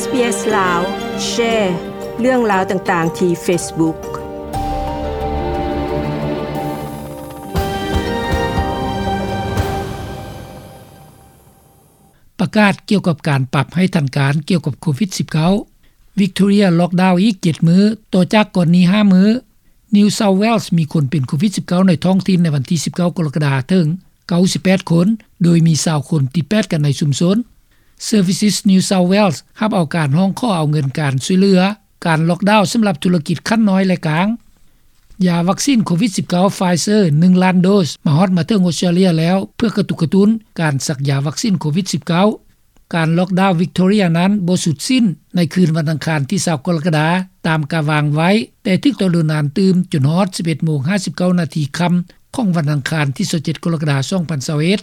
ເອສ ລາວ ແຊເລື່ອງລາວຕ່າງໆທີ່ເຟສບຸກ. ປະກາດກ່ຽວກັບການປັບໃຫ້ທັນການກ່ຽວກັບໂຄວິດສິບເກົ້າ ວິກໂທເຣຍລັອກດາວອີກເຈັດມື້ ຕໍ່ຈາກກ່ອນນີ້ຫ້າມື້. New South Wales ມີຄົນເປັນໂຄວິດສິບເກົ້າໃນທ້ອງຖິ່ນໃນວັນທີສິບເກົ້າກໍລະກະດາເຖິງເກົ້າສິບແປດຄົນ ໂດຍມີຊາວຄົນຕິດແປດກັນໃນຊຸມຊົນ. Services New South Wales ຮັບເອົາການຮ້ອງຂໍເອົາເງິນການຊ່ວຍເຫຼືອການລັອກດາວສຳລັບທຸລະກິດຂັ້ນນ້ອຍ ແລະ ກາງ. ຢາວັກຊິນໂຄວິດສິບເກົ້າ Pfizer ໜຶ່ງລ້ານໂດສ ມາຮອດມາເຖິງອົດສະຕຣາເລຍແລ້ວ ເພື່ອກະຕຸກກະຕຸ້ນການສັກຢາວັກຊິນໂຄວິດສິບເກົ້າ. ການລັອກດາວວິກໂທເຣຍນັ້ນບໍ່ສຸດສິ້ນໃນຄືນວັນອັງຄານທີຊາວກໍລະກະດາ ຕາມກາວາງໄວ້, ແຕ່ຖືກຕໍ່ໂດນນານຕື່ມຈົນຮອດສິບເອັດໂມງຫ້າສິບເກົ້ານາທີຄ່ຳຂອງວັນອັງຄານທີຊາວເຈັດກໍລະກະດາສອງພັນຊາວເອັດ.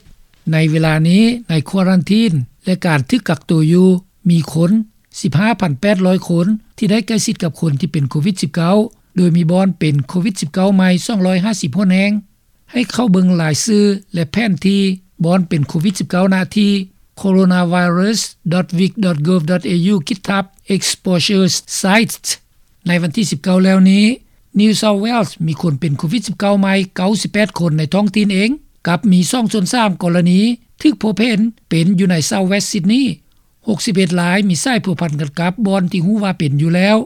ໃນເວລານີ້ ໃນຄວາຣັນທີນ ແລະ ການຖືກກັກໂຕຢູ່ ມີຄົນສິບຫ້າພັນແປດຮ້ອຍຄົນ ທີ່ໄດ້ໃກ້ຊິດກັບຄົນທີ່ເປັນໂຄວິດສິບເກົ້າ ໂດຍມີບ່ອນເປັນໂຄວິດສິບເກົ້າໃໝ່ສອງຮ້ອຍຫ້າສິບຫົນແຫ່ງ. ໃຫ້ເຂົ້າເບິ່ງລາຍຊື່ ແລະ ແຜນທີ່ບ່ອນເປັນໂຄວິດສິບເກົ້າ ນະທີ່ coronavirus.vic.gov.au ຄິດທັບ exposure sites. ໃນວັນທີສິບເກົ້າແລ້ວນີ້ New South Wales ມີຄົນເປັນໂຄວິດສິບເກົ້າໃໝ່ເກົ້າສິບແປດຄົນໃນທ້ອງຖິ່ນເອງ, ກັບມີສອງສ່ວນສາມກໍລະນີຖືກພົບເຫັນເປັນຢູ່ໃນ South West Sydney. ຫົກສິບເອັດລາຍມີສາຍພົວພັນກັນກັບບ່ອນທີ່ຮູ້ວ່າເປັນຢູ່ແລ້ວ.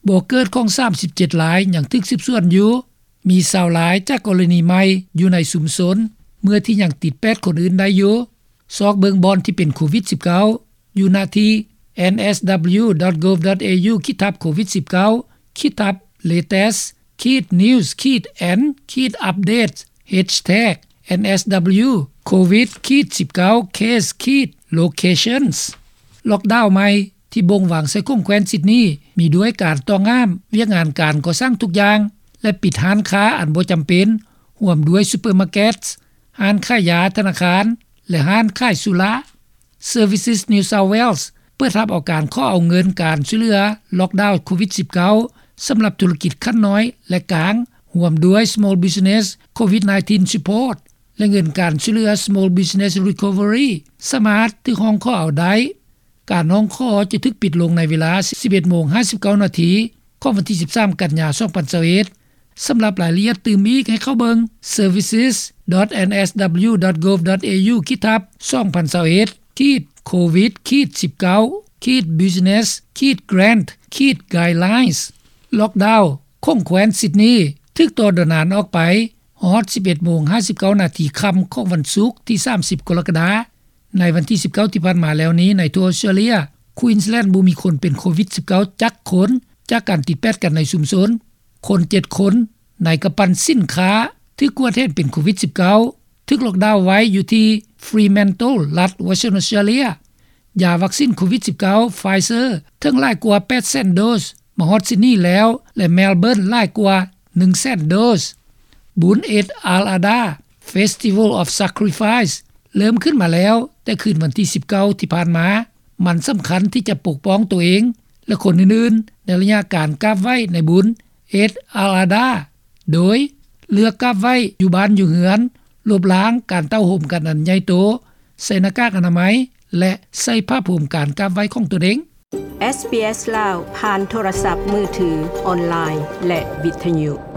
ບໍ່ເກີດຂອງສາມສິບເຈັດລາຍຍັງຖືກສືບສວນຢູ່. ມີຊາວລາຍຈາກກໍລະນີໃໝ່ຢູ່ໃນຊຸມຊົນ ເມື່ອທີ່ຍັງຕິດແປດຄົນອື່ນໄດ້ຢູ່. ຊອກເບິ່ງບ່ອນທີ່ເປັນໂຄວິດສິບເກົ້າ ຢູ່ນະທີ່ NSW.gov.au ຄິດທັບ COVID-19 ຄິດທັບ latest ຂີດ news ຂີດ and ຂີດ update hashtag NSW COVID-19 case ຂີດ locations. ລັອກດາວໃໝ່ ທີ່ບົ່ງວາງໃສ່ຂົງແຂວນຊິດນີ ມີດ້ວຍການຕ້ອງຫ້າມວຽກງານການກໍ່ສ້າງທຸກຢ່າງ ແລະ ປິດຮ້ານຄ້າອັນບໍ່ຈຳເປັນ ຮ່ວມດ້ວຍຊຸບເປີມາເກັດ, ຮ້ານຂາຍຢາ, ທະນາຄານ ແລະ ຮ້ານຂາຍສຸລາ. Services New South Wales ເປີດຮັບເອົາການຂໍເອົາເງິນການຊ່ວຍເຫຼືອລັອກດາວໂຄວິດ-19 ສຳລັບທຸລະກິດຂັ້ນນ້ອຍ ແລະ ກາງ ຮ່ວມດ້ວຍ Small Business COVID-19 Support ແລະ ເງິນການຊ່ວຍເຫຼືອ Small Business Recovery ສາມາດຖືກຮ້ອງຂໍເອົາໄດ້. ການຮ້ອງຂໍຈະຖືກປິດລົງໃນເວລາສິບເອັດໂມງຫ້າສິບເກົ້ານາທີ ຂອງວັນທີສິບສາມ ກັນຍາ ສອງພັນຊາວເອັດ. ສຳລັບລາຍລະອຽດຕື່ມອີກ ໃຫ້ເຂົ້າເບິ່ງ services.nsw.gov.au ຄິດທັບ 2021 ຂີດ COVID-19 ຂີດ business ຂີດ grant ຂີດ guidelines. ລັອກດາວຂົງແຂວນຊິດນີ ຖືກຕໍ່ໂດນນານອອກໄປຮອດສິບເອັດໂມງຫ້າສິບເກົ້ານາທີຄ່ຳຂອງວັນສຸກທີສາມສິບກໍລະກະດາ. ໃນວັນທີສິບເກົ້າທີ່ຜ່ານມາແລ້ວນີ້ ໃນທົ່ວອົດສະຕຣາເລຍ Queensland ບໍ່ມີຄົນເປັນໂຄວິດ-19 ຈັກຄົນ ຈາກການຕິດແປດກັນໃນຊຸມຊົນ. ຄົນເຈັດຄົນໃນກຳປັ່ນສິນຄ້າຖືກກວດເຫັນເປັນໂຄວິດ-19 ຖືກລັອກດາວໄວ້ຢູ່ທີ່ Fremantle ລັດ Western Australia. ຢາວັກຊິນໂຄວິດ-19 Pfizer ເຖິງຫຼາຍກວ່າແປດແສນໂດສ ມາຮອດຊິດນີແລ້ວ ແລະ Melbourne ຫຼາຍກວ່າໜຶ່ງແສນໂດສ. ບຸນ Eid al-Adha Festival of Sacrifice ເລີ່ມຂຶ້ນມາແລ້ວແຕ່ຄືນວັນທີສິບເກົ້າທີ່ຜ່ານມາ. ມັນສຳຄັນທີ່ຈະປົກປ້ອງຕົວເອງ ແລະ ຄົນອື່ນໆ ໃນໄລຍະການກາບໄຫວ້ໃນບຸນ Eid al-Adha ໂດຍເລືອກກາບໄຫວ້ຢູ່ບ້ານຢູ່ເຮືອນ, ລົບລ້າງການເຕົ້າໂຮມກັນອັນໃຫຍ່ໂຕ, ໃສ່ໜ້າກາກອະນາໄມ ແລະ ໃສ່ຜ້າໂພມການກາບໄຫວ້ຂອງຕົນເອງ. ເອສບີເອສ ລາວ ຜ່ານໂທລະສັບມືຖື, ອອນລາຍ ແລະ ວິທະຍຸ.